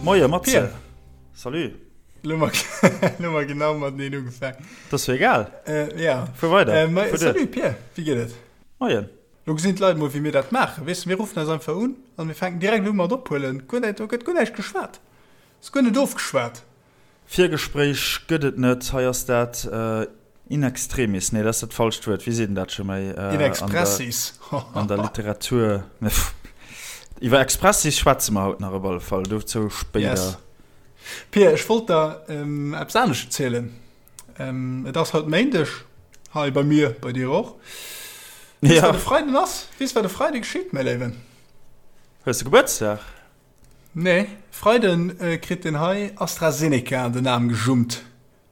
Moie Matze. Salut. Lo hu mer genau mateneen ugefaangen. Dat ass jo egal. Ja. Fuer weider. Salut Pir, wéi geet et? Moien. Lo gesinn d'Leit mol wéi mir dat maachen. Weess de, mir ruffen eis einfach un an mir fänken direkt u mat ophuelen. Guer näischt, do gëtt guer näischt geschwat. Ass guer net ofgeschwat. Virgespréich gëtt et net. Hei ass dat in extremis, nee, dat ass dat falscht Wuert, wéi seet een dat scho méi? In expressis. An der Literatur. Iwwer Expressis schwätze mer haut nach op alle Fall, dozou spéider. Yes. Pir, ech wollt der eppes anescht erzielen. Et ass haut Méindeg hei bei mir, bei dir och. Weess, wat de Freiden ass? Weess, wat e Freide geschitt, mäi Léiwen? Hues de Gebuertsdag? Nee, Freiden kritt den hei AstraZeneca an den Aarm gejummt.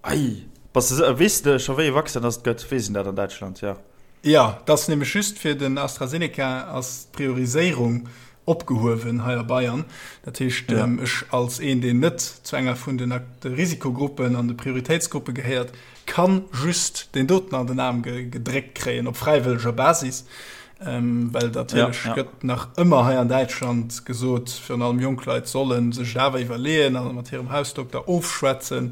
Ei, bass de, weess de scho wéi e Vaccin dass et gëtt? Weess een dat an Däitschland? Jo. Jo, et ass nämlech just fir den AstraZeneca ass d'Prioriséierung opgehuewen hei a Bayern. Dat heescht, ech als een, deen net zu enger vun den Risikogruppen an de Prioritéitsgruppe gehéiert, kann just deen doten an den Aarm gedréckt kréien, op fräiwëlleger Basis. Well natierlech gëtt nach ëmmer hei an Däitschland gesot, virun allem jonk Leit solle sech et awer iwwerleeën a mat hirem Hausdokter ofschwätzen,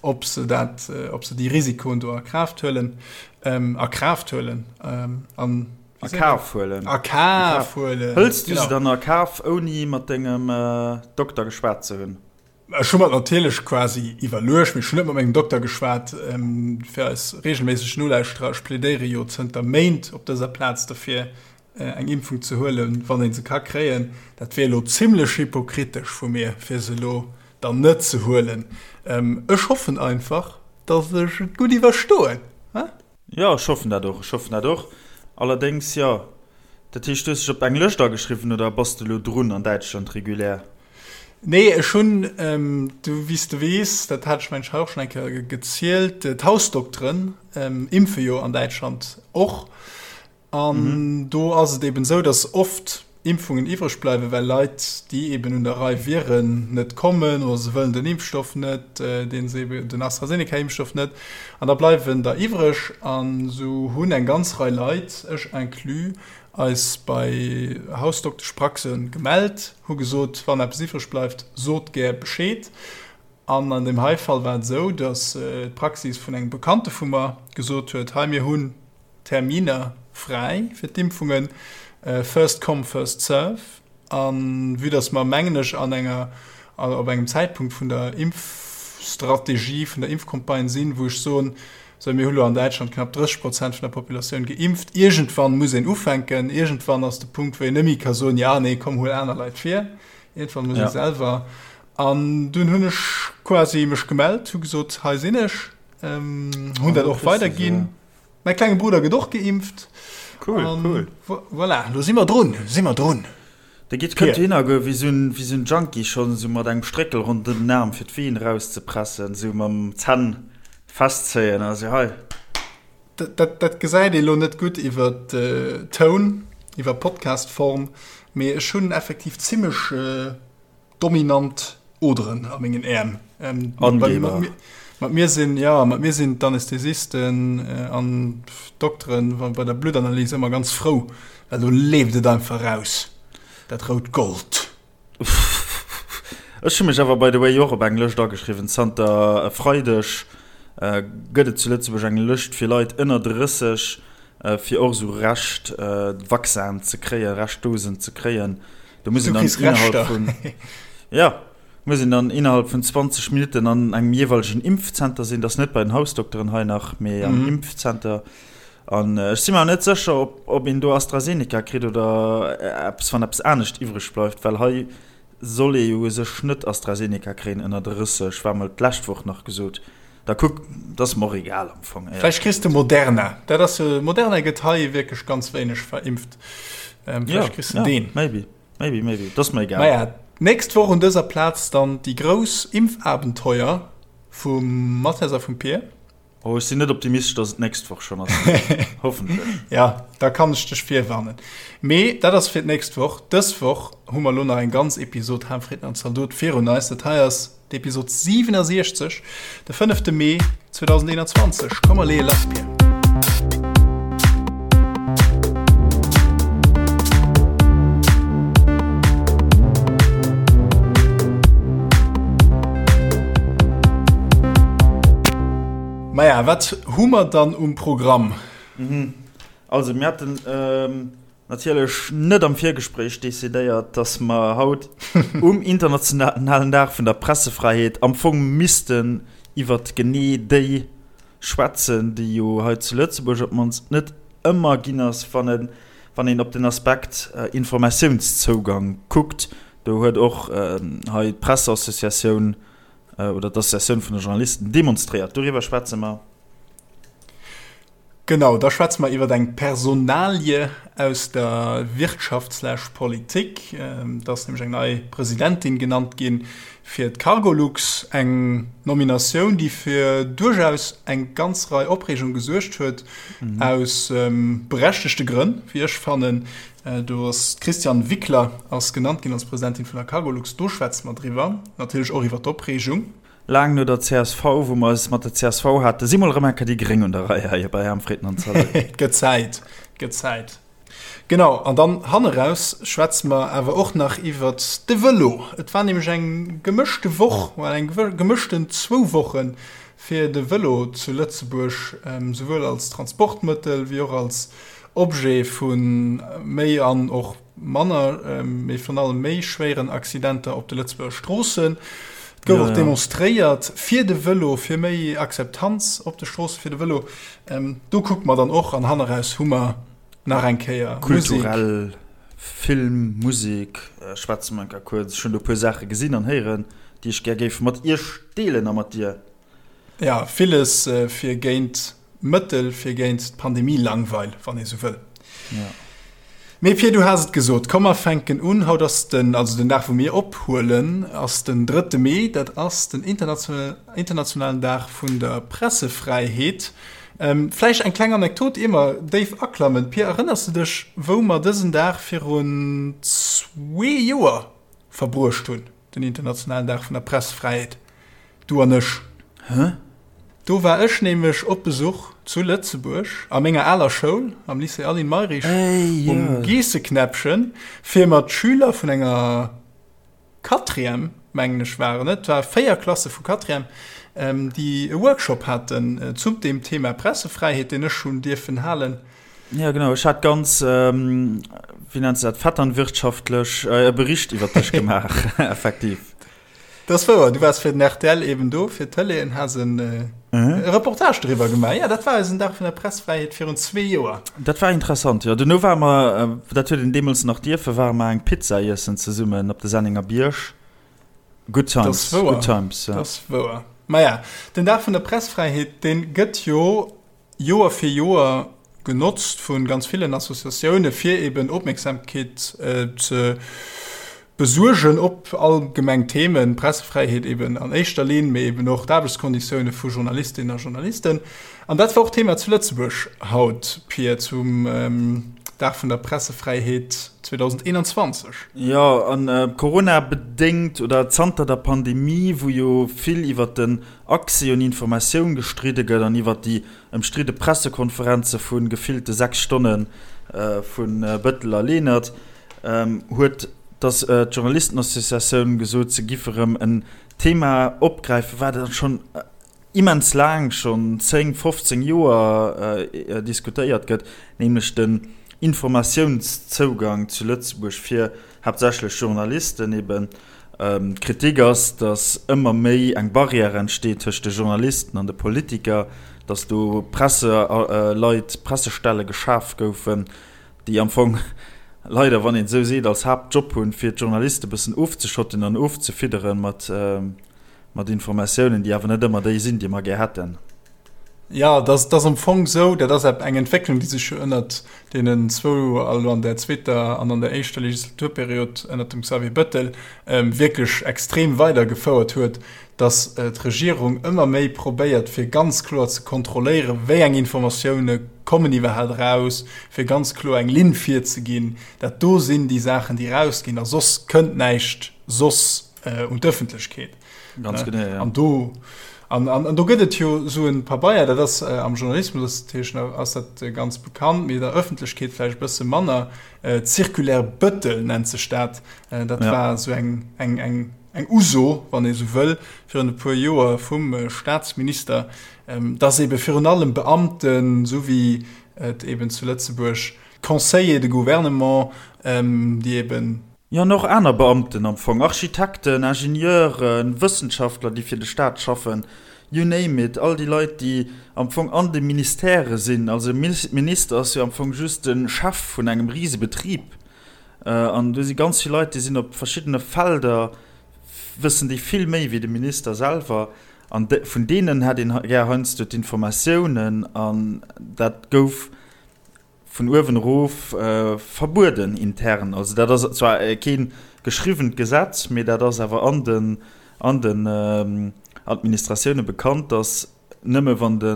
ob se dat, ob se déi Risikoen do a Kraaft huelen, a Kraaft huelen, an A Kaf huelen. A Kaf huelen. Hëls du se dann a Kaf, ouni mat dengem Dokter geschwat ze hunn? Ech hu mer et natierlech quasi iwwerluecht, mee ech hunn net mat mengem Dokter geschwat. Fir eis reegelméisseg Nolauschterer, ech plädéiere jo zënter Méint op dëser Plaz derfir, eng Impfung ze huelen, wann ee se ka kréien. Dat wier elo zimmlech hypokritesch vu mir, fir se elo dann net ze huelen. Ech hoffen einfach, datt ech et gutt iwwerstoen. Jo, ech hoffen dat och, ech hoffen dat och. Allerdéngs, jo. Dat heescht, du hues dech op eng Lëscht ageschriwwen oder bass de elo drun an Däitschland regulär? Nee, ech hunn, du, wéi s de weess, dat hat ech mengen ech hei och schonn eng Kéier gezielt, d'Hausdokteren impfe jo an Däitschland och. An do ass et eben esou, datt oft Impfungen iwwreg bleiwen, well Leit, déi eben un der Rei wieren, net kommen oder se wëllen den Impfstoff net, deen se eben, den AstraZeneca-Impfstoff net. An da bleiwen der iwwreg. An esou hunn eng ganz Rei Leit, ech inclus, eis bei Hausdokteschpraxe gemellt, hu gesot, wann eppes iwwreg bleift, sot gär Bescheed. An an deem hei Fall war et esou, datt d'Praxis vun engem Bekannte vu mer gesot huet, hei mir hunn Terminer fräi fir d'Impfungen, first come, first serve. A vue dass mer, mengen ech, an enger, op engem Zäitpunkt vun der Impfstrategie, vun der Impfcampagne sinn, wou ech soen, sou mir hu lo an Däitschland knapp 30 Prozent vun der Populatioun geimpft, iergendwann muss een ufänken, iergendwann ass de Punkt, wou een net méi ka soen, ja, nee, komm, huel aner Leit vir, iergendwann muss ee selwer. An dunn hunn ech quasi mech gemellt, hu gesot, hei sinn ech, hunn dat och weiderginn. Mäi klenge Brudder gëtt och geimpft. Cool, An cool. Voilà, lo si mer drun, si mer drun. De Git kënnt dohinner goe wéi sou en, wéi sou en Junkie schonn, sou mat engem Stréckel ronderëm den Aarm fir d'Ween erauszepressen, sou mam Zänn festzéien a sou hei. Dat, dat, dat gesäit ee lo net gutt iwwer Toun, iwwer Podcast-Form, mee ech hunn effektiv zimmlech Dominant Oderen a mengen Äerm. Angeber. Mat mir sinn, ja, mat mir sinn d'Anästhesisten an d'Dokteren bei der Bluttanalys ëmmer ganz frou, well do leeft et einfach raus, dat rout Gold. Ech hu mech awer by the way och op eng Lëscht ageschriwwen. Zanter e Freideg gëtt et zu Lëtzebuerg eng Lëscht fir Leit ënner 30, fir och esou Rescht Vaccinen ze kréien, Reschtdosen ze kréien. Do muss een dann innerhalb vun, ja, muss een dann innerhalb vun 20 Minutten an engem jeeweilegen Impfzenter sinn. Dat ass net bei den Hausdokteren hei nach, mee am Impfzenter. An ech si mer net sécher, ob, ob een do AstraZeneca kritt oder eppes, wann eppes anescht iwwreg bleift, well hei soll ee jo u sech net AstraZeneca kréien ënner 30, war mol d'lescht Woch nach gesot. Da kuck, dat ass mer och egal am Fong, éierlech Vläicht kriss de gesot. Moderna. Dat ass jo, Moderna gëtt hei wierklech ganz wéineg verimpft. Ähm, Ja, vläicht kriss de ja, deen. maybe, maybe, maybe. Dat ass mer egal. Naja, d'nächst Woch un dëser Plaz dann déi grouss Impfabenteuer vum Mathias a vum Pir. Oh, ech sinn net optimistesch, dass et d'nächst Woch schonn ass. Mee hoffentlech. Ja, da kann ech dech virwarnen. Mee dat ass fir d'nächst Woch. Dës Woch hu mer elo nach eng ganz Episod Ham, Fritten an Zaldot virun eis. Dat hei ass d'Episod 67, de fënnefte Mee 2021. Komm mer leeë lass, Pir. Maja, wat hu mer dann um Programm? Also mir haten natierlech net am Virgespréich decidéiert, dass mer haut um internationalen Dag vun der Pressefräiheet am Fong missten iwwert genee déi schwätzen, déi jo hei zu Lëtzebuerg op d'mannst net ëmmer ginn ass, wann e wann een op den Aspekt Informatiounszougang kuckt. Do huet och hei d'Presseassociatioun oder d'Associatioun vun de Journalisten demonstréiert. Doriwwer schwätze mer. Genau, da schwätze mer iwwer eng Personalie aus der Wirtschaft slash Politik. Et ass nämlech eng nei Presidentin genannt gi fir d'Cargolux. Eng Nominatioun, déi fir duerchaus eng ganz Rei Opreegung gesuergt huet, aus berechtegte Grënn, wéi ech fannen. Do ass d'Christiane Wickler ass genannt ginn als Presidentin vun der Cargolux. Do schwätze mer driwwer, natierlech och iwwer d'Opreegung. Laang no der csv, wou mer es mat der csv haten, si mol erëm eng Kéier déi Gréng un der Rei hei bei Aarm Fritten an Zalot. Et gëtt Zäit, et gëtt Zäit. Genau, an dann hanneraus schwätze mer awer och nach iwwert de Vëlo. Et war nämlech eng gemëschte Woch, well eng gemëschten zwou Woche fir de Vëlo zu Lëtzebuerg, souwuel als Transportmëttel wéi och als Objet vu méi an och Manner, mee virun allem méi schwéieren Accidenter op de Lëtzebuerger Stroossen. Et gouf och demonstréiert fir de Vëlo, fir méi Akzeptanz op de Stroosse fir de Vëlo. Do kucke mer dann och an hanneraus hu mer nach eng Kéier Musek. Kulturell, Film, Musek schwätze mer eng Kéier kuerz. Ech hunn do e puer Saache gesinn an héieren, déi ech gär géif mat iech deelen a mat dir. Ja, villes fir géint Mëttel fir géint d'Pandemie-Langweil, wann ee sou wëll. Ja. Mee Pir, du has et gesot, komm mer fänken un. Haut ass den, also den Dag wou mir ophuelen, ass den drëtte Mee, dat ass den internationalen Dag vun der Pressefräiheet. Vläicht eng kleng Anekdot, ier mer déif aklammen. Pir, erënners de dech, wou mer dësen Dag virun zwee Joer verbruecht hunn, den internationalen Dag vun der Pressefräiheet? Du an ech. Hä? Do war ech nämlech op Besuch zu Lëtzebuerg a menger aler Schoul, am Lycée Aline Mayrisch um Geesseknäppchen, fir mat Schüler vun enger Quatrième, mengen ech waren et, war 4 Klasse vu Quatrième, déi e Workshop haten zu deem Thema Pressefräiheet, deen ech hunn dierfen halen. Ja genau, ech hat ganz, wéi nennt se dat, vetternwirtschaftlech e Bericht iwwer dech gemaach, effektiv. Dat ass wouer, du waars fir den rtl eben do, fir d'Tëlee an has en Reportage doriwwer gemaach. Jo, dat war eisen Dag vun der Pressfräiheet virun zwee Joer. Dat war interessant, jo. Duerno ware mer, dat huet een deemools nach dierfen, ware mer eng Pizza iessen zesummen op de Sennenger Bierg. Good times, good times, jo. Dat ass wouer. Maja, den Dag vun der Pressfräiheet, dee gëtt jo Joer fir Joer genotzt vu ganz villen Associatioune fir eben Opmierksamkeet ze besuergen op allgemeng Themen, Pressefräiheet eben an éischter Linn, mee eben och d'Aarbechtskonditioune vu Journalistinnen a Journalisten. An dat war och Thema zu Lëtzebuerg haut, Pir, zum Dag vun der Pressefräiheet 2021. Jo, an Corona-bedéngt oder zanter der Pandemie, wou jo vill iwwer den Accès un Informatioun gestridde gëtt an iwwer déi ëmstridde Pressekonferenze vu gefillte 6 Stonne vu Bëttel a Lenert, huet d'Journalistenassociatioun gesot, se giff erëm en Thema opgräifen, wat schonn immens laang, schonn 10, 15 Joer diskutéiert gëtt, nämlech den Informatiounszougang zu Lëtzebuerg fir haaptsächlech Journalisten eben. D'Kritik ass, datt ëmmer méi eng Barrière entsteet tëscht de Journalisten an de Politiker, datt do Presseleit, Pressestelle geschaf goufen, déi am Fong leider, wann een et esou seet, als Haaptjob hunn, fir d'Journaliste bëssen ofzeschotten an ofzefiddere mat Informatiounen, déi awer net ëmmer déi sinn, déi mer gär hätten. Jo, dat ass am Fong esou, dat ass eng Entwécklung, déi sech jo ënnert deenen zwou, also an der zweeter an an der éischter Legislaturperiod ënnert dem Xavier Bettel, wierklech extrem weidergefouert huet, datt d'Regierung ëmmer méi probéiert, fir ganz kloer ze kontrolléieren, wéi eng Informatioune kommen iwwerhaapt eraus, fir ganz kloer eng Linn virzeginn, dat do sinn déi Saachen, déi erausginn a soss kënnt näischt soss un d'Ëffentlechkeet. Ganz genau, ja. An do. An, an, an do gëtt et jo esou en Pabeier, dat ass am Journalismus ass dat, ass dat ganz bekannt, mee der Ëffentlechkeet vläicht e bësse manner, D'Circulaire Bettel nennt sech dat. Dat ja. war esou eng, eng, eng, eng Uso, wann ee sou wëll, virun e puer Joer vum Staatsminister, dass ebe virun allem Beamten, esou wéi et eben zu Lëtzebuerg Conseillers de gouvernement, déi eben. Jo, an och aner Beamten am Fong, Architekten, Ingenieuren, Wëssenschaftler, déi fir de Staat schaffen, you name it, all déi Leit, déi am Fong an de Ministèrë sinn. Also e Minister ass jo am Fong just de Chef vun engem Risebetrib. An do si ganz vill Leit, déi sinn op verschiddene Felder, wëssen déi vill méi wéi de Minister selwer. An vun deenen hätt een gär heiansdo d'Informatiounen. An dat gouf vun uewen erof verbueden intern. Also dat ass zwar kee geschriwwent Gesetz, mee dat ass awer an den an den Administratioune bekannt, datt nëmme wann de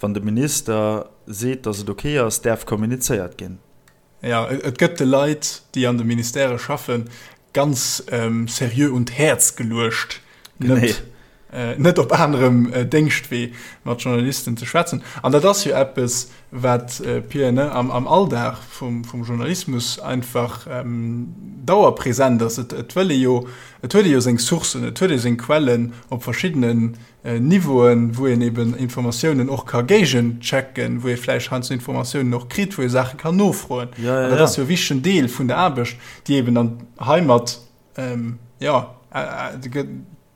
wann de Minister seet, datt et ok ass, däerf kommunizéiert ginn. Jo, et gëtt de Leit, déi an de Ministèrë schaffen, ganz seriö un d'Häerz geluecht, net net op anerem Déngschtwee mat Journalisten ze schwätzen. An dat ass jo eppes, wat, Pia, ne, am am Alldag vum vum Journalismus einfach dauerpräsent ass. Et et wëll ee jo, et huet ee jo seng Sourcen, et huet ee seng Quellen op verschiddenen Niveauen, wou een eben Informatiounen och ka géigenchecken, wou ee vläicht heiansdo Informatiounen och kritt, wou ee Saache kann nofroen. An dat ass jo e wichtegen Deel vun der Aarbecht, déi eben dann heimat, jo,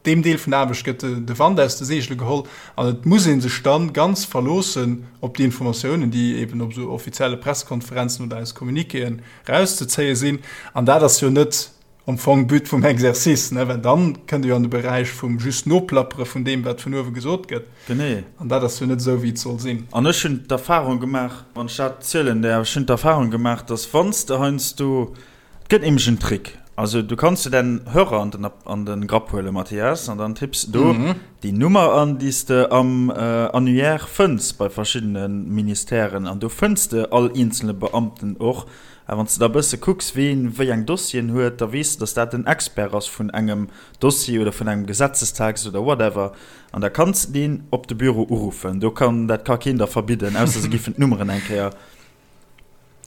deem Deel vun der Aarbecht gëtt de Wand aus de Seegele geholl. An et muss ee sech dann ganz verloossen op déi Informatiounen, déi eben op esou offizielle Pressekonferenzen oder aus Communiquéen erauszezéie sinn. An dat ass jo net am Fong But vum Exercice, ne? Well dann kënnt e jo an de Beräich vum just Noplappere vun deem, wat vun uewe gesot gëtt. Genee. An dat ass jo net esou, wéi et soll sinn. An ech hunn d'Erfahrung gemaach, wann ech dat zielen däerf, ech hunn d'Erfahrung gemaach, dass wann s de heiansdo, et gëtt nämlech en Trick, also du kanns de däin Hörer an den, an de Grapp huelen, Mathias, an dann tipps de do déi Nummer an, déi s de am Annuaire fënns bei verschiddene Ministèren, an do fënns de all eenzele Beamten och. A wann s de da e bësse kucks, ween wéi eng Dossieren huet, da weess de, dass dat en Expert ass vun engem Dossier oder vun engem Gesetzestext oder whatever. An da kanns de deen op de Büro uruffen. Do kann, dat ka keen der verbidden, ausser se giffen d'Nummeren eng Kéier,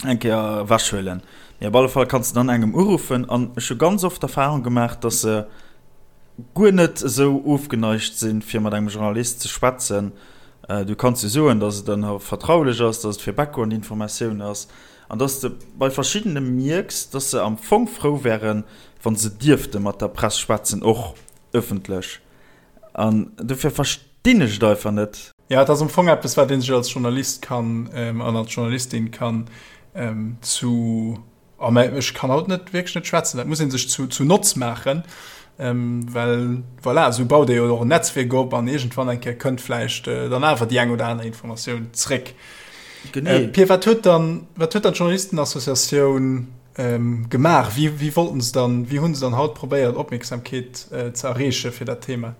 eng Kéier ewechhuelen. Mee op alle Fall kanns de dann engem uruffen. An ech hu ganz oft d'Erfahrung gemaach, dass se guer net esou ofgeneigt sinn, fir mat engem Journalist ze schwätzen. Du kanns jo soen, dass et dann vertraulech ass, dass et fir Background-Informatioun ass. An dass de bei verschiddene mierks, dass se am Fong frou wären, wa se dierfte mat der Press schwätzen, och ëffentlech. An dofir verstinn ech et einfach net. Jo, et ass am Fong eppes, wat ee sech als Journalist kann an als Journalistin kann zu, oh mä ech kann haut net, wierklech net schwätzen, dat muss ee sech zu Notz maachen, well voilà, esou baut ee jo och en Netzwierk op an iergendwann eng Kéier kënnt vläicht dann awer déi eng oder aner Informatioun zréck. Genee. Äh, Pir, wat huet dann, wat huet dann d'Journalistenassociatioun ähm, gemaach? Wéi, wéi wollten se dann, wéi hunn se dann haut probéiert, Opmierksamkeet äh, ze erreeche fir dat Thema?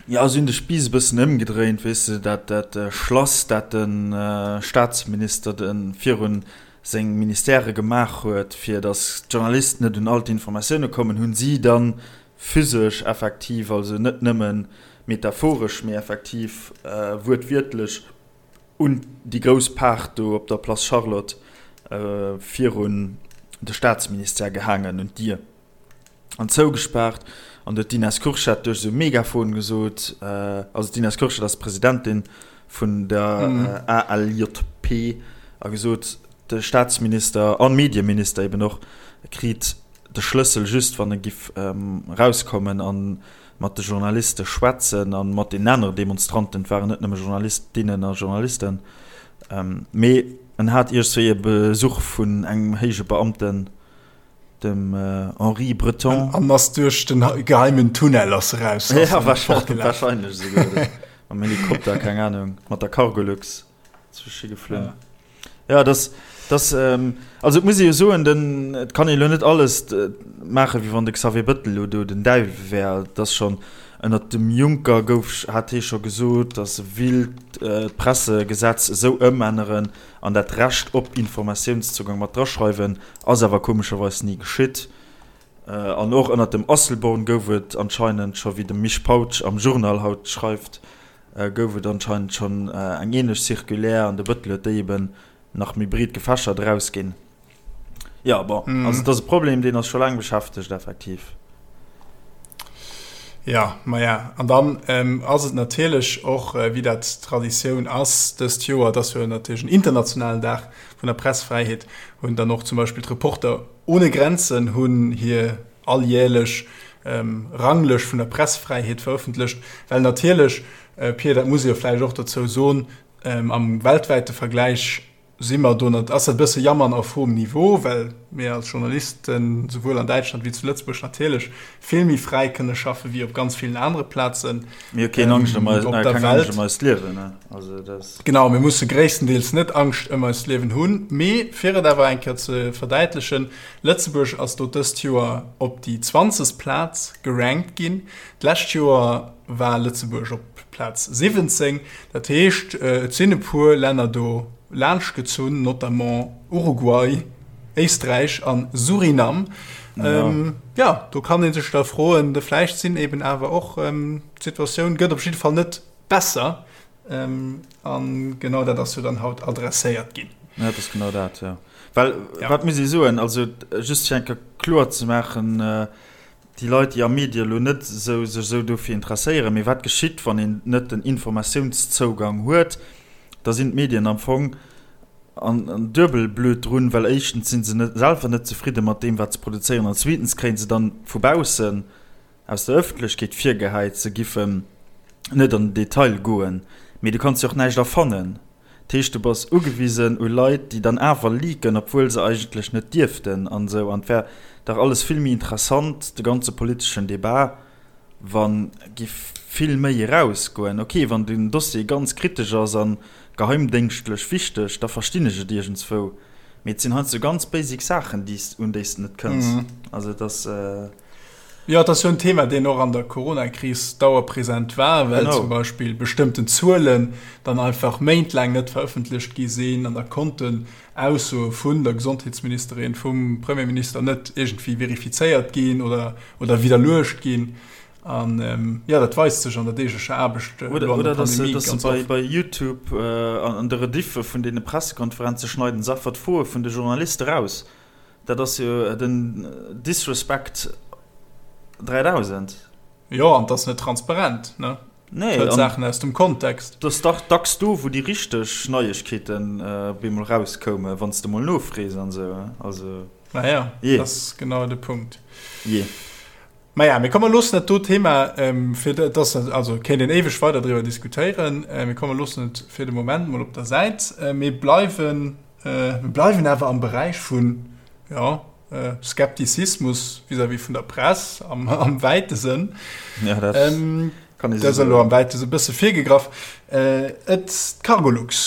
Ja, si hunn de Spiiss e bëssen ëmgedréint, weess de, dat, dat äh, Schlass, dat de äh, Staatsminister de virun seng Ministèrë gemaach huet, fir datt d'Journalisten net un all d'Informatioune kommen, hunn si dann physesch effektiv, also net nëmme metaphoresch, mee effektiv äh, wuertwiertlech, un déi grouss Paart do op der Place Charlotte virun de Staatsministère gehaangen, un d'Dier an zougespaart. An do huet d'Ines Kurschat duerch esou e Megafon gesot, also d'Ines Kurschat ass d'Presidentin vun der ALJP, a gesot, de Staatsminister an Medieminister eben och kriit de Schlëssel just wann e giff erauskommen an mat de Journaliste schwätzen a mat den anere Demonstranten, et waren net nëmme Journalistinnen a Journalisten, mee en hat iergswéi e Besuch vun engem héije Beamten, dem Henri Breton. An ass duerch den geheimen Tunnel ass eraus. Ja, wahrscheinlech esouguer, mam Helikopter, keng Ahnung, mat der Cargolux. Zwësche geflunn. Ja, das, das, ähm, also et muss ee jo soen, den, et kann ee lo net alles maachen, wéi wann de Xavier Bettel lo do den Däiwel wär. Et ass schonn, ënnert dem Juncker gouf, hat hee scho gesot, datt e willt d'Pressegesetz esou ëmänneren an dat Recht op Informatiounszougang mat draschreiwen, ass awer komescherweis ni geschitt. An och ënnert dem Asselborn gouf et anscheinend scho, wéi de Misch Pautsch am Journal haut schreift. gouf et anscheinend schonn eng ähnlech Circulaire an de Bëttel huet déi eben nach méi breet gefächert erausginn. Jo, bon, also et ass e Problem, deen eis scho laang beschäftegt, effektiv. Jo, maja, an dann ass et natierlech och, wéi dat Traditioun ass dëst Joer, et ass jo natierlech en internationalen Dag vun der Pressfräiheet, hunn dann och zum Beispill d'Reporter ohne Grenzen hunn hir alljährlech Ranglëscht vun der Pressfräiheet verëffentlecht, well natierlech, Pir, dat muss ee jo vläicht och dozou soen, am weltwäite Vergläich si mer do, ass dat e bësse Jammern auf hohem Niveau, well mir als Journalisten souwuel an Däitschland wéi zu Lëtzebuerg natierlech vill méi fräi kënne schaffe wéi op ganz villen anere Plazen Mir hu keen Angscht ëm op der Welt. Ëm eist Liewen, ne? Also dat. Genau, mir musse gréisstendeels net Angscht ëm eist Liewen hunn. Mee fir et awer eng Kéier ze verdäitlechen, Lëtzebuerg ass do dëst Joer op déi 20. Plaz gerankt ginn. D'lescht Joer war Lëtzebuerg op Plaz 17. Dat heescht, et sinn e puer Länner do laanschtgezunn, notamment Uruguay, Éisträich a Surinam. Jo, do kann ee sech da froen, vläicht sinn eben awer och, d'Situatioun gëtt op jidde Fall net besser. A genau dat ass jo dann haut adresséiert ginn. Ja, dat ass genau dat, jo. Well, wat muss ee soen, also just fir eng Kéier kloer ze maachen, déi Leit, déi am Medie elo net esou sech esou dofir interesséieren, mee wat geschitt, wann een net den Informatiounszougang huet, da sinn d'Medien am Fong an duebel blöd drun, well éischtens si se net selwer net zefridde mat deem, wat se produzéieren, an zweetens kréie se dann vu baussen aus der Ëffentlechkeet virgehäit, se giffen net an den Detail goen. Mee du kanns jo och näischt erfannen. Dat heescht, du bass ugewisen u Leit, déi dann awer leaken, obwuel se eigentlech net dierften an esou. An et wär dach alles vill méi interessant, de ganze politeschen Debat, wa giff vill méi erausgoen. Ok, wann den Dossier ganz kritesch ass a geheimdéngschtlech wichteg, da verstinn ech et iergendswou. Mee et sinn heiansdo ganz basic Saachen, déi s, un déi s de net kënns. Also et ass. Jo, et ass jo en Thema, deen och an der Coronakris dauerpräsent war, well zum Beispill bestëmmten Zuelen dann einfach méintlaang net verëffentlecht gi sinn an da konnten Aussoe vun der Gesondheetsministerin, vum Premierminister net iergendwéi verifizéiert ginn oder, oder widderluecht ginn. An jo, dat weist sech an der deeglecher Aarbecht elo an der Pandemie ganz oft. Oder dass se bei YouTube an de Rediffe vun deene Pressekonferenze schneiden se einfach d'Froe vun de Journaliste raus. Dat ass jo den Disrespect 3000. Jo, an 't ass net transparent, ne? Nee. Hëlt Saachen aus dem Kontext. 't ass dach dacks do, wou déi richteg Neiegkeeten op eemol rauskoumen, wann s de mol nofrees an esou. Also, Naja, jee. dat ass genau de Punkt. Jee. Maja, mee komm, mer loossen dat do Thema fir, dat ass, also kéint een éiweg weider driwwer diskutéieren, mee komm, mer loossen et fir de Moment mol op der Säit. Mir bleiwen, mir bleiwen awer am Beräich vun, jo, Skeptizismus vis-à-vis vun der Press am, am wäite Sënn. Ja, dat kann ee sou soen. Dat ass elo am wäite Sënn e bësse virgegraff. Et, d'Cargolux,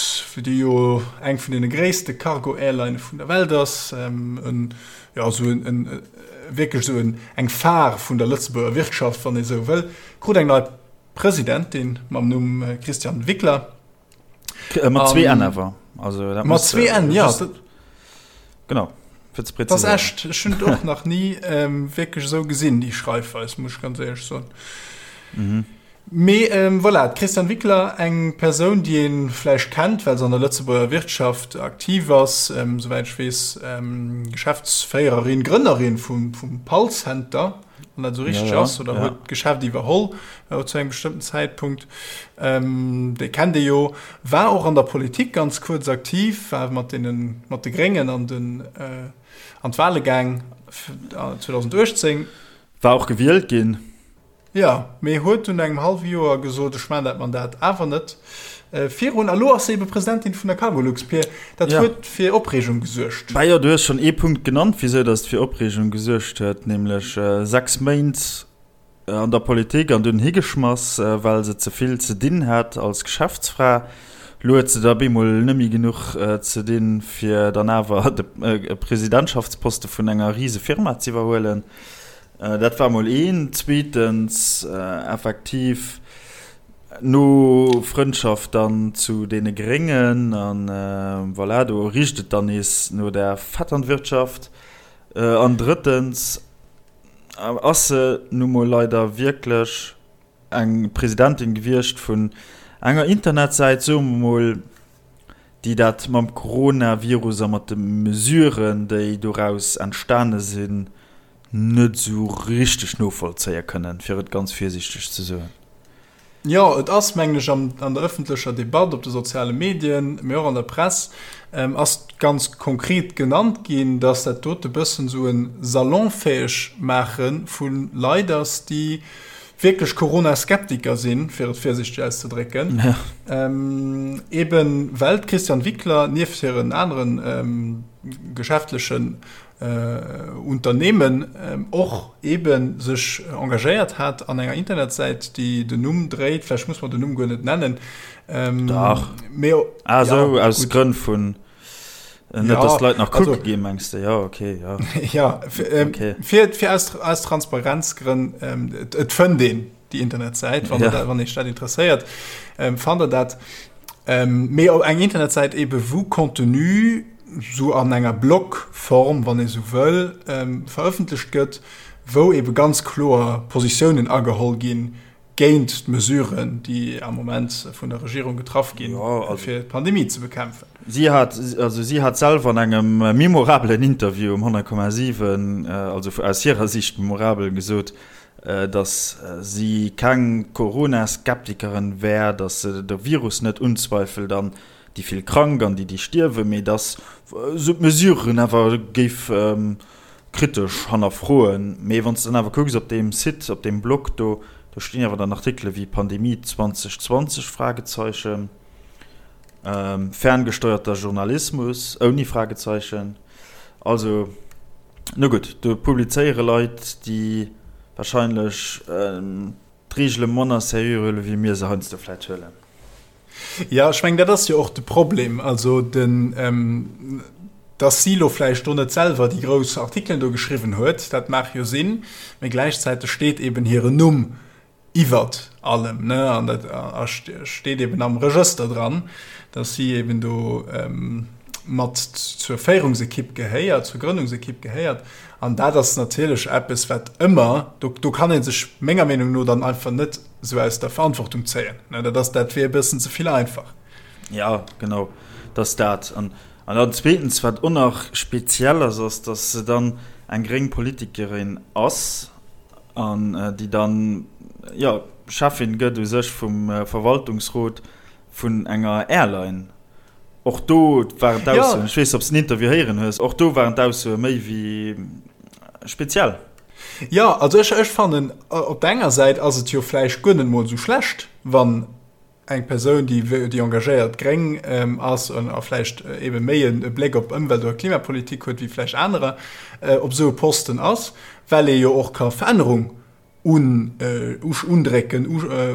déi jo eng vun deene gréisste Cargo-Airlinë vun der Welt ass, en, jo, esou en, wierklech esou en, eng Phare vun der Lëtzebuerger Wirtschaft, wann ee sou wëll, krut eng nei Presidentin mam Numm Christiane Wickler. Mat zwee N awer. Also, dat mat zwee N, ja. Genau, fir ze präziséieren. Dat ass echt, ech hunn et och nach ni ähm, wierklech esou gesinn, déi Schreifweis, muss ech ganz éierlech soen. Mhm. Mee ähm, voilà, d'Christiane Wickler, eng Persoun, déi ee vläicht kennt, well se an der Lëtzebuerger Wirtschaft aktiv ass, ähm, souwäit ech weess, ähm, Geschäftsféiererin, Grënnerin vum, vum Pall-Center, wann dat esou richteg ass, oder huet d'Geschäft iwwerholl zu engem bestëmmten Zäitpunkt. Déi kennt ee jo. War och an der Politik ganz kuerz aktiv, war mat deenen, mat de Gréngen an den, an d'Wale gaang 2018. War och gewielt ginn. Jo, mee huet dunn no engem hallwe Joer gesot, ech maachen dat Mandat awer net virun. A lo ass se ebe Presidentin vun der Cargolux. Pir, dat huet fir Opreegung gesuergt. Bah jo, du hues schonn ee Punkt genannt, wisou datt et fir Opreegung gesuergt huet, nämlech 6 Méint an der Politik an dunn higeschmass, well se ze vill ze dinn hat als Geschäftsfra. Lo huet se da bemol net méi genuch ze dinn, fir dann awer de Presidentschaftsposte vun enger rise Firma z'iwwerhuelen. Dat war mol een. Zweetens, effektiv no Frëndschaft dann zu deene Gréngen an voilà, do richt et dann nees no der Vetternwirtschaft. An drëttens ass se nu mol leider wierklech eng Presidentin gewiescht vun. enger Internetsäit, soe mer mol, déi dat mam Coronavirus a mat de Mesuren, déi doraus entstane sinn, net esou richteg novollzéie kënnen, fir et ganz virsiichteg ze soen. Jo, et ass, mengen ech, an der ëffentlecher Debatt, op de soziale Medien, mee och an der Press, ass ganz konkret genannt ginn, dass dat dote bëssen esou e salonfäeg Maache vu Leit ass, déi wierklech Corona-Skeptiker sinn, fir et virsiichteg auszedrécken, eeben well d'Christiane Wickler nieft hiren anere geschäftlechen Unternehmen och eebe sech engagéiert hat an enger Internetsäit, déi den Numm dréit, vläicht muss mer den Numm guer net nennen. Dach. Mee, ah, sou, ja, aus Grënn vun, net dass d'Leit nach kucke ginn, mengs de? Jo, okay, jo. Ja, okay. Fir, fir aus, aus Transparenzgrënn, et fënnt een déi Internetsäit, wann, ja. wann Iech dat interesséiert, fannt Der dat. Mee op eng Internetsäit ebe wou Contenu sou an enger Blogform, wann ee sou wëll, verëffentlecht gëtt, wou ebe ganz kloer Positiounen ageholl ginn géint d'Mesuren, déi am Moment vun der Regierung getraff ginn, fir d'Pandemie ze bekämpfen. Si hat, also si hat selwer an engem memorabelen Interview um 100,7, also aus hirer Sicht memorabel, gesot, datt si keng Corona-Skeptikerin wär, datt se de Virus net unzweifelt an déi vill krank an déi, déi stierwen, mee datt se d'Mesuren awer géif kritesch hannerfroen. Mee wann s de dann awer kucks op deem Site, op deem Blog do, do stinn awer dann Artikele wéi Pandemie 2020, Fragezeichen, ferngesteuerter Journalismus ouni Fragezeichen. Also, no gutt, do publizéiere Leit, déi wahrscheinlech d'Reegele manner seriö huele wéi mir se heiansdo vläit huelen. Jo, ech mengen, dat ass jo och de Problem. Also den, dass si elo vläicht do net selwer déi grouss Artikelen do geschriwwen huet, dat mag jo sinn, mä gläichzäiteg steet eben hiren Numm iwwert allem, ne, an dat steet eben am Regëster dran, dass si eben do mat zur Féierungsekipp gehéiert, zur Grënnungsekipp gehéiert. An dat ass natierlech eppes, wat ëmmer, do, do kann ee sech menger Meenung no dann einfach net esou aus der Verantwortung zéien, ne, dat ass, dat wier e bëssen ze vill einfach. Ja, genau, dat ass dat. An, an dann zweetens, wat och nach speziell ass, ass, dass se dann eng gréng Politikerin ass, an déi dann, jo, Cheffin gëtt u sech vum Verwaltungsrot vun enger Airline. Och do waren d'Aussoen, ech weess, ob s de den Interview héieren hues, och do waren d'Aussoe méi wéi speziell. Jo, also ech, ech fannen, op der enger Säit ass et jo vläicht guer net mol esou schlecht, wann eng Persoun, déi déi engagéiert Gréng ass a vläicht ebe méi e Bléck op Ëmwelt oder Klimapolitik huet wéi vläicht anerer, op esou e Posten ass, well ee jo och ka Verännerung undrécken,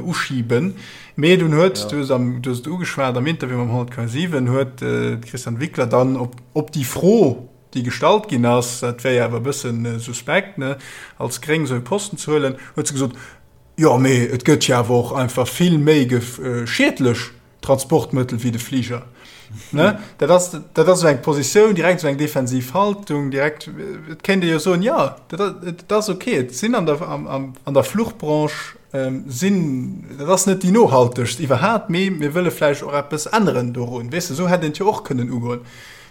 uschiben. Mee dunn huet, du hues am, du hues et ugeschwat, am Interview mam 100,7 huet d'Christiane Wickler dann op op déi Fro, déi gestallt ginn ass, dat wär jo awer e bësse suspekt, ne, als Gréng esou e Posten ze huelen, huet se gesot, Jo, mee et gëtt jo awer och einfach vill méi schiedlech Transportmëttel wéi de Fliger. Ne? Dat ass, dat ass esou eng Positioun, direkt esou eng defensiv Haltung, direkt, et kéint ee jo soen, jo, dat, et ass ok, et sinn an der, am, am, an der Fluchbranche sinn, dat ass net déi nohaltegst iwwerhaapt, mee mir wëlle vläicht och eppes änneren dorun. Weess de, esou hätt een et jo och kënnen ugoen.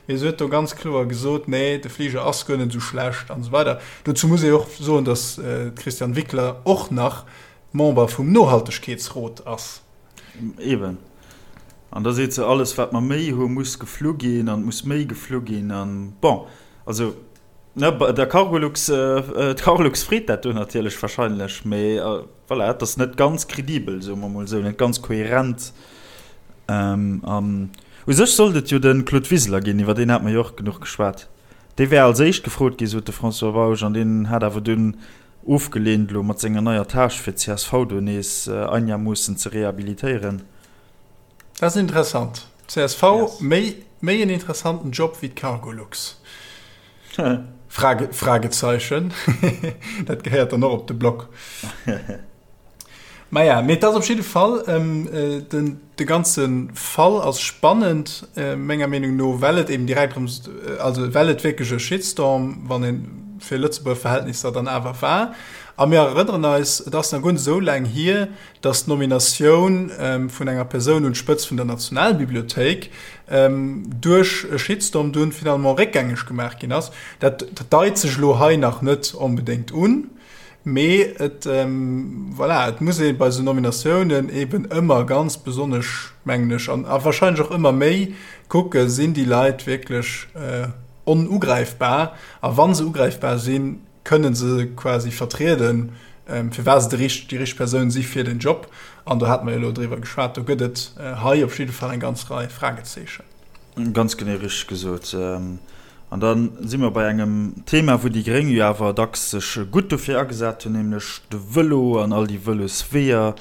Mee se huet do ganz kloer gesot, nee, de Fliger ass guer net esou schlecht an esou weider. Dozou muss ee och soen, datt d'Christiane Wickler och nach Member vum Nohaltegkeetsrot ass. Eben. An da seet se, alles wat mer méi hu muss geflu ginn an et muss méi geflu ginn an bon, also ne, der Cargolux, d'Cargolux freet dat do natierlech wahrscheinlech, mee voilà, et ass net ganz kredibel, soe mer mol esou, net ganz kohärent. An u sech sollt et jo de Claude Wiseler ginn, iwwer deen hate mer jo och genuch geschwat. Dee wär als éischt gefrot ginn, sot de François Bausch, an deen hat awer dunn ofgeleent, elo mat senger neier Tâche fir d'CSV do nees einermoossen ze rehabilitéieren. Dat ass interessant. Csv, méi, méi en interessanten Job wéi d'Cargolux? Frage, Fragezeichen. Dat gehéiert dann och op de Blog. Maja, mee et ass op jidde Fall, den, de ganze Fall ass spannend, menger Meenung no, well et eben direkt erëm, also well et wierklech e Shitstorm, wann een. fir Lëtzebuerger Verhältnisser dann awer war. A mir erënneren eis, et ass nach guer net esou laang hier, dass d'Nominatioun vun enger Persoun un d'Spëtzt vun der Nationalbibliothéik duerch e Shitstorm dunn finalement réckgängeg gemaach ginn ass. Dat deit sech elo hei nach net onbedéngt un, mee et, voilà, et muss ee bei esou Nominatiounen eeben ëmmer ganz besonnesch, mengen ech, an a wahrscheinlech och ëmmer méi kucken, Sinn déi Leit wierklech onugräifbar? A wa se ugräifbar sinn, kënne se quasi vertrieden, firwat se déi richteg Persoun si fir den Job. An do hate mer jo elo driwwer geschwat, do gëtt et hei op jidde Fall eng ganz Rei Fragezeechen. Ganz genee richteg gesot. An da si mer bei engem Thema, wou déi Gréng jo awer dacks sech gutt dofir agesat hunn, nämlech de Vëlo an all déi Vëlosweeër,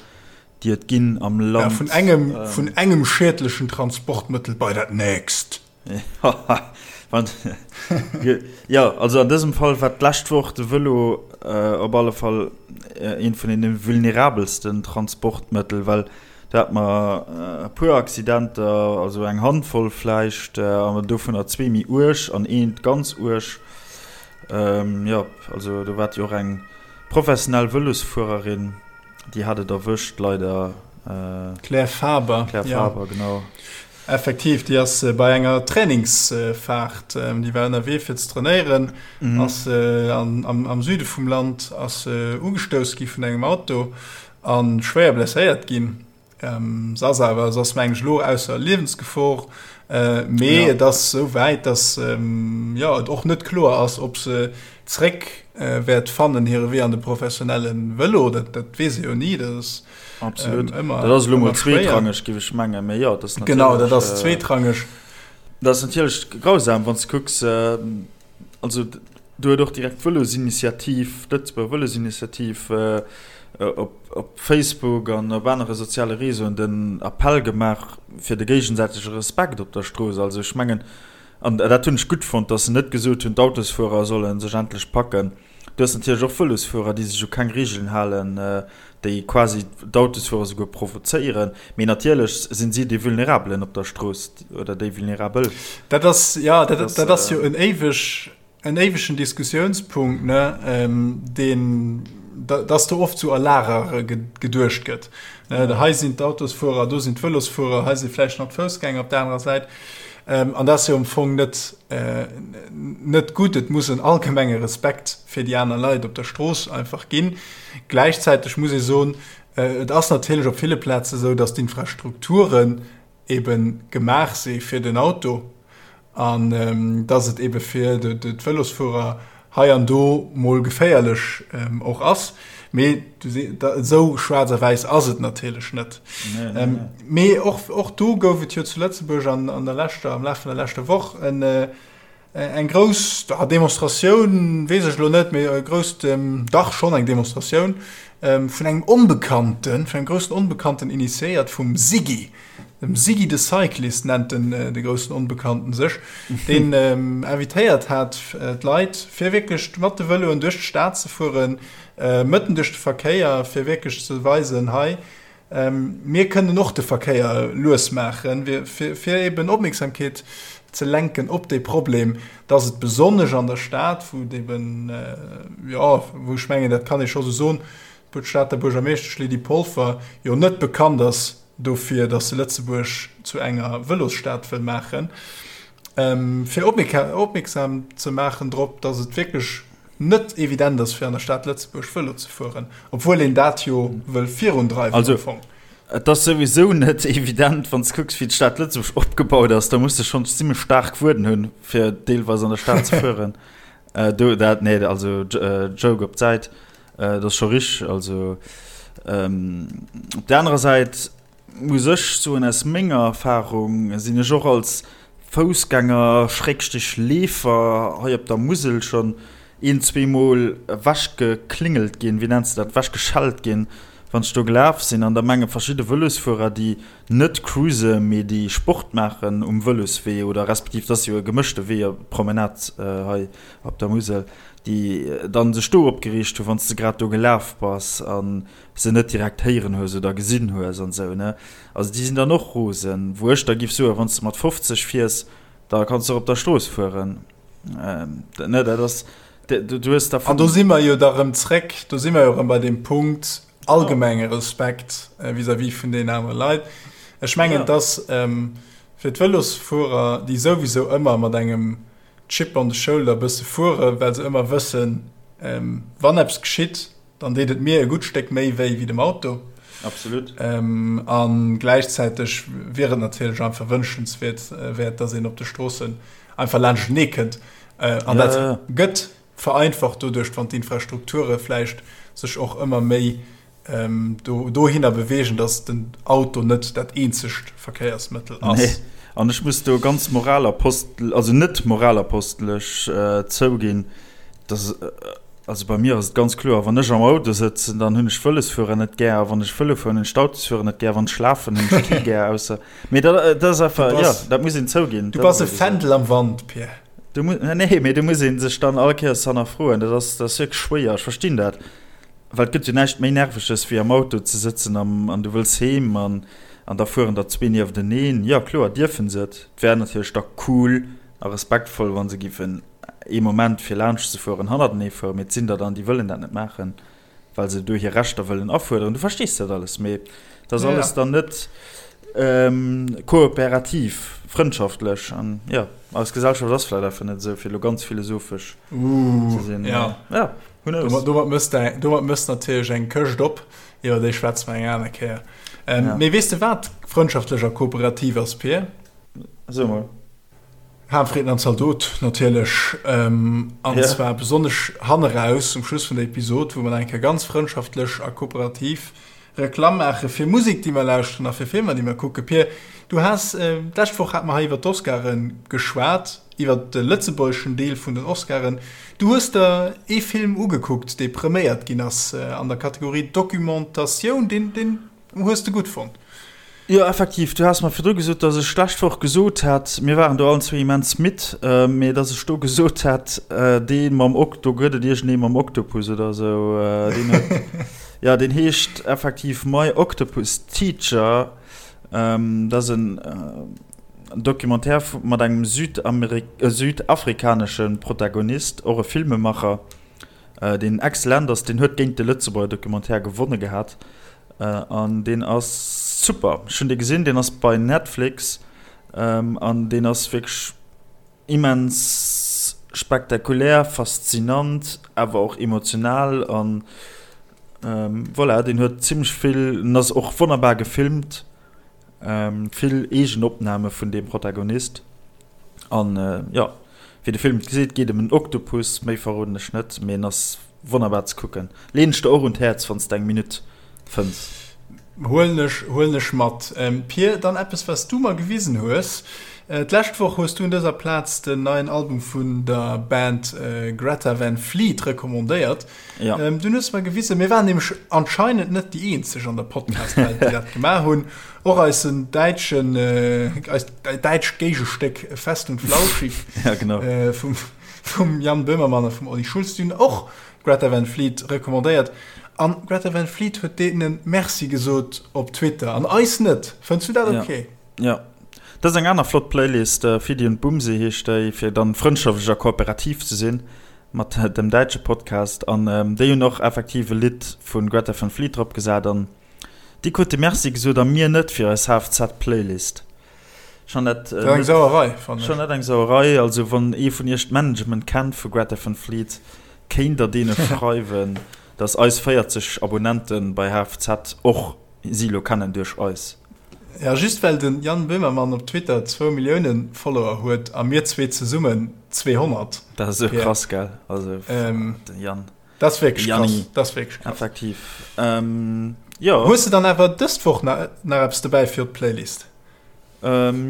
déi et ginn am Land. Ja, vun engem, vun engem schiedlechen Transportmëttel bei dat nächst. Jo, also an dësem Fall war d'lescht Woch de Vëlo op alle Fall eent vun deene vulnerabelsten Transportmëttel, well do hate mer e puer Accidenter, also eng Handvoll vläicht, an dovunner zwee méi uerg an eent ganz uerg. Jo, also do war jo och eng professionell Vëlosfuererin. Déi hat et erwëscht, leider. D'Claire Faber. Claire Faber, genau. Effektiv, déi ass bei enger Trainingsfaart, déi war ënnerwee fir ze trainéieren, ass am Süde vum Land ass se ugestouss gi vun engem Auto a schwéier blesséiert ginn. Se ass awer, se ass mengen ech elo ausser Liewensgefor, mee et ass esou wäit, datt jo et och net kloer ass, ob se zréck wäert fannen hire Wee an de professionelle Vëlo. Dat dat weess ee jo ni, dat ass Absolut. ëmmer Dat ass elo mol zweetrangeg, géif ech mengen, mee jo, dat ass natierlech. Genau, dat ass zweetrangeg. Dat ass natierlech grausam, wann s de kucks, also do huet och direkt d'Vëlosinitiativ, d'Lëtzebuerger Vëlosinitiativ op Facebook an op anere soziale Réseauen den Appell gemaach fir de géigesäitege Respekt op der Strooss. Also ech mengen, an dat hunn ech gutt fonnt, datt se net gesot hunn, d'Autosfuerer solle sech endlech packen. Du hues natierlech och Vëlosfuerer, déi sech u keng Reegelen halen, déi quasi d'Autosfuerer souguer provozéieren. Mee natierlech sinn si déi Vulnerabelen op der Strooss oder déi Vulnerabel. Dat ass, jo, dat ass jo en éiweg, en éiwegen Diskussiounspunkt, ne, deen, dass do oft sou a Lager geduecht gëtt. Hei sinn d'Autosfuerer, do sinn d'Vëlosfuerer, hei si vläicht nach d'Foussgänger op der anerer Säit. An dat ass jo am Fong net, net gutt. Et muss en allgemenge Respekt fir déi aner Leit op der Strooss einfach ginn. Gläichzäiteg muss ee soen, et ass natierlech op ville Plaze sou, dass d'Infrastrukturen ebe gemaach si fir den Auto an dass et ebe fir d'Vëlosfuerer hei an do mol geféierlech och ass. Mee esou schwaarz a wäiss ass et natierlech net. Mee och do gouf et jo zu Lëtzebuerg an der leschter, am Laf vun der leschter Woch en eng grouss Demonstratioun, weess ech elo net, mee e grousst, dach schonn eng Demonstratioun vun engem Onbekannten, vun engem groussen Onbekannten initiéiert vum Siggy. Dem Siggy the Cyclist nennt den de groussen Onbekannten sech, deen invitéiert hat d'Leit, fir wierklech mat de Vëloen duerch d'Stad ze fueren, mëtten duerch de Verkéier, fir wierklech ze weisen, hei, mir kënnen och de Verkéier lues maachen, fir eben Opmierksamkeet ze lenken op dee Problem, dass et besonnesch an der Stad, wou et eben, jo, wou ech mengen, dat kann ee scho sou soen, d'Stater Buergermeeschtesch Lydie Polfer jo net bekannt ass dofir, dass se Lëtzebuerg zu enger Vëlosstad wëll maachen, fir opmierksam ze maachen drop, dass et wierklech net evident ass, fir an der Stad Lëtzebuerg Vëlo ze fueren, obwuel een dat jo wëll virundreiwen am Fong. Et ass souwisou net evident, wann s de kucks, wéi d'Stad Lëtzebuerg opgebaut ass. Da muss de schonn zimmlech staark Wueden hunn, fir deelweis an der Stad ze fueren. Do dat, nee, also Joke op d'Säit, dat ass scho richteg. Also op där anerer Säit muss ech soen, aus menger Erfarung sinn ech och als Foussgänger, Schrägstrich Leefer hei op der Musel schonn een, zweemol ewechgeklingelt ginn, wéi nenns de dat, ewechgeschellt ginn, wann ech do gelaf sinn. An da menge verschidde Vëlosfuerer, déi net cruise mee déi Sport maachen um Vëloswee oder respektiv, dat ass jo e gemëschte Wee, Promenade hei op der Musel, déi dann sech do opgereegt hunn, wann s de grad do gelaf bass a se net direkt héieren hues oder gesinn hues an esou ne. Also déi sinn dann och rosen, wou ech da giff soen, wann s de mat 50 fiers, da kanns de och op der Strooss fueren ne. Dat ass. Du hues da An do si mer jo da rëm zréck, do si mer jo rëm bei deem Punkt allgemenge Respekt vis-à-vis vun deenen anere Leit. Ech mengen, dass fir d'Vëlosfuerer, déi souwisou ëmmer mat engem Chip on the shoulder e bësse fueren, well se ëmmer wëssen, wann eppes geschitt, dann deet et mir e gutt Stéck méi wéi wéi dem Auto. Absolut. A gläichzäiteg wier et natierlech einfach wënschenswäert, wäert, dass een op de Stroossen einfach laanschtenee kënnt. An dat gëtt vereinfacht doduerch, wann d'Infrastrukture vläicht sech och ëmmer méi dohinner beweegen, dass den Auto net dat eenzegt Verkéiersmëttel ass. Nee, an ech muss do ganz moralapostel, also net moralapostelesch zouginn, dass, also bei mir ass et ganz kloer, wann ech am Auto sëtzen, dann hunn ech d'Vëlosfuerer net gär, a wann ech Vëlo fueren, hunn ech d'Autosfuerer net gär, wann ech lafen, hunn ech kee gär, ausser, mee dat, dat ass einfach, jo, dat muss een zouginn. Du bass e Fändel am Wand, Pierre. Du mu, nee, mee do muss ee sech dann all Kéiers hannerfroen, dat ass, dat ass wierklech schwéier, ech verstinn dat. Well et gëtt jo näischt méi Nerveges wéi am Auto ze sëtzen an du wëlls heem an da fueren der zwee niefteneen. Jo kloer dierfen se et. Et wär natierlech da cool a respektvoll wa se giffen ee Moment fir laanscht ze fueren hannertenee fueren, mee et sinn der dann déi wëllen dat net maachen, well se do hir Rechter wëllen afuerderen. Du verstees dat alles, mee et ass alles dann net kooperativ, frëndschaftlech an jo eis Gesellschaft ass vläicht einfach net esou fir elo ganz philosophesch ze sinn. Jo. Who knows? Domat mëss de, domat mëss natierlech eng Këscht op, iwwer déi schwätze mer eng aner Kéier. Ähm, ja. Mee weess de wat frëndschaftlech a kooperativ ass, Pir? So mol. Hahnfrieden an Zaldot natierlech. Ähm, an ja. zwar besonnesch hanneraus um Schluss vun der Episod, wou mer eng Kéier ganz frëndschaftlech a kooperativ Reklamm maache fir Musek, déi mer lauschteren a fir Filmer, déi mer kucken. Pir, du has, d'lescht Woch hate mer hei iwwer d'Oscare geschwat, iwwer de lëtzebuergeschen Deel vun den Oscaren. Du hues der ee Film ugekuckt, dee preméiert ginn ass an der Kategorie Documentatioun. Deen, deen hues de gutt fonnt. Jo, effektiv, du has mer virdru gesot, datt ech d'lescht Woch gesot hätt, mir waren do allen zwee immens midd, mee datt ech do gesot hätt, dee mam Ok, do gëtt et iergendee mam Oktopus oder esou, deen huet, jo, deen heescht effektiv My Octopus Teacher. Dat ass en Documentaire mat engem südafrikanesche Protagonist, och e Filmemacher. Deen excellent ass, deen huet géint de Lëtzebuerger Documentaire gewonne gehat an deen ass super. Ech hunn dee gesinn, deen ass bei Netflix an deen ass wierklech immens spektakulär, faszinant, awer och emotional an voilà, deen huet zimmlech vill, en ass och wonnerbar gefilmt. Vill eegen Opname vun deem Protagonist. An jo, wéi de Film et geseet, geet ëm en Oktopus. Méi verroden ech net, mee en ass wonnerbar ze kucken. Leen ech der och un d'Häerz, wann s de eng Minutt fënns. Huelen ech, huelen ech mat. Pir, dann eppes, wat s du mer gewisen hues. D'lescht Woch hues du un dëser Plaz den neien Album vun der Band Greta Van Fleet recommandéiert. Ja. Ähm, du hues mer gewisen, mir waren nämlech anscheinend net déi eenzeg an der Podcast-Welt, déi dat gemaach hunn. Och eisen däitschen, äh, eist däitscht Géigestéck Fest und Flauschig ja, genau. äh, vum, vum Jan Böhmermann a vum Olli Schulz, déi hunn och Greta Van Fleet recommandéiert. An Greta Van Fleet huet deenen Merci gesot op Twitter an eis net. Fënns du dat okay? Ja. ja. Dat ass eng aner flott Playlist, äh, Fidi und Bumsi heescht déi, fir dann frëndschaftlech a kooperativ ze sinn. Mat dem däitsche Podcast an déi hunn och effektiv e Lidd vu Greta Van Fleet drop gesat an déi krute Merci gesot a mir net fir eis HFZ-Playlist. Schon dat Dat eng Sauerei, fannen ech. Schon dat eng Sauerei. Also wann ee vun iech d'Management kennt vu Greta Van Fleet, kéint der deene schreiwen, dass eis 40 Abonnente bei HFZ och si lo kennen duerch eis. Ja, just well den Jan Böhmermann op Twitter zwou Milliounen Follower huet a mir zwee zesummen 200. Dat ass esou krass, gell? Also den Jan. Dat ass wierklech krass. Dat ass wierklech krass. Effektiv. Jo. Hues de dann awer dëst Woch nach eppes dobäi fir op d'Playlist?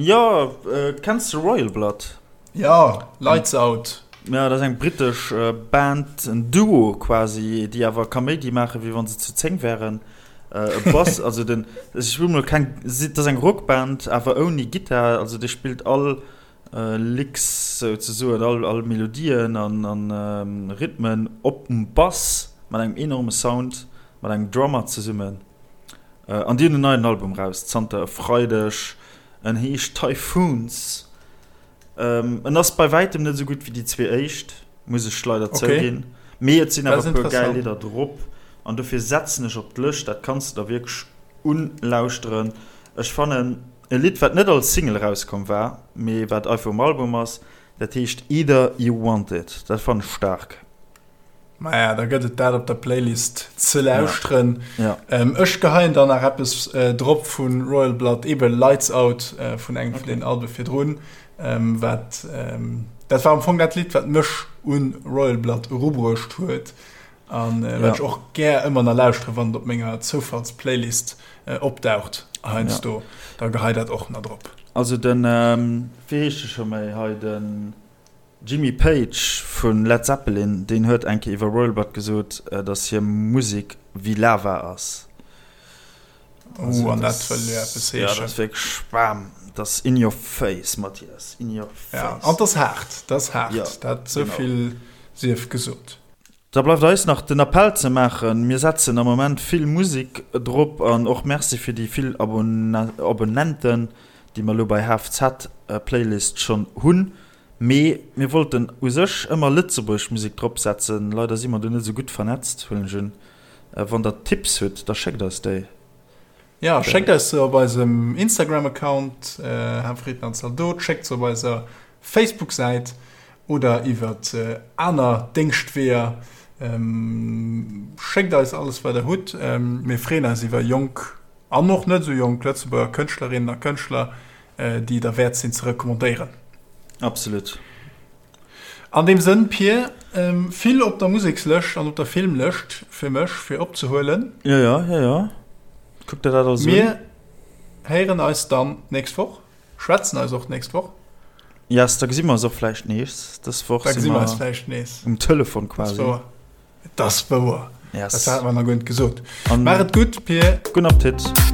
Jo, kenns de Royal Blood? Jo, Lights Out. Jo, dat ass eng brittesch Band, en Duo quasi, déi awer Kaméidi maachen, wéi wa se zu 10 wären. E Bass, also den, ech wëll mol keng, dat ass eng Rockband, awer ouni Gittar, also dee spillt all Licks souzesoen, all, all Melodien an, an Rhythmen op dem Bass mat engem enorme Sound, mat engem Drummer zesummen. An déi hunn en neien Album raus zanter e Freideg, en heescht Typhoons. En ass bei wäitem net esou gutt wéi déi zwee éischt. Muss ech leider zouginn. Mee et sinn awer e puer gäil Lidder drop an dofir setzen ech op d'Lëscht. Dat kanns de der wierklech unlauschteren. Ech fannen e Lidd, wat net als Single erauskomm war, mee wat einfach um Album ass, dat heescht Either You Want It. Dat fannen ech staark. Maja, da gëtt et dat op der Playlist ze lauschteren. Ja. Ähm, ech geheien dann nach eppes äh, drop vun Royal Blood, eben Lights Out äh, vun engem okay. vun den Albe virdrun. Ähm, wat, ähm, dat war am Fong dat Lidd, wat mech un Royal Blood erubruecht huet. An äh, wat ja. ech och gär ëmmer nach lauschtere, wann et op menger Zoufallsplaylist äh, opdaucht heiansdo. Ja. Da gehei dat och nach drop. Also den, ähm, wéi heescht de scho méi hei, den Jimmy Page vu Led Zeppelin, deen huet eng Kéier iwwer Royal Blood gesot, datt hir Musek wéi Lava ass. Oh, an dat wëll jo eppes heeschen. Ja, dat ass wierklech bam, dat ass in your face, Mathias, in your face. Ja, an dat ass haart, dat ass haart, ja, dat esou vill sief gesot. Da bleift eis nach den Appell ze maachen, Mir setzen am Moment vill Musek drop an och Merci fir déi vill Abonnenten, déi mer elo bei HFZ Playlist schonn hunn. Mee mir wollten u sech ëmmer lëtzebuergesch Musek drop setzen. Leider si mer do net esou gutt vernetzt, huelen ech un. Wann der Tipps hutt, da schéckt eis déi. Jo, schéckt eis se op eisem Instagram-Account, Hafrieden an Zaldot, schéckt se op eiser Facebook-Säit oder iwwert aner Déngschtweeër. Schéckt eis alles wat der hutt. Mir freeën eis iwwer jonk an och net esou jonk Lëtzebuerger Kënschtlerinnen a Kënschtler, déi derwäert sinn ze recommandéieren. Absolut. An deem Sënn, Pir, vill op der Musekslëscht an op der Filmlëscht fir mech fir opzehuelen. Jo, jo, jo, jo. Kuck der dat alles un. Mir héieren eis dann d'nächst Woch, schwätzen eis och d'nächst Woch. Yes, da gesi mer eis och vläicht nees. Dës Woch si mer eis vläicht nees um Telefon quasi. Et ass wouer. Yes. Dat hat mer nach guer net gesot. Maach et gutt, Pir. Gudden Appetit.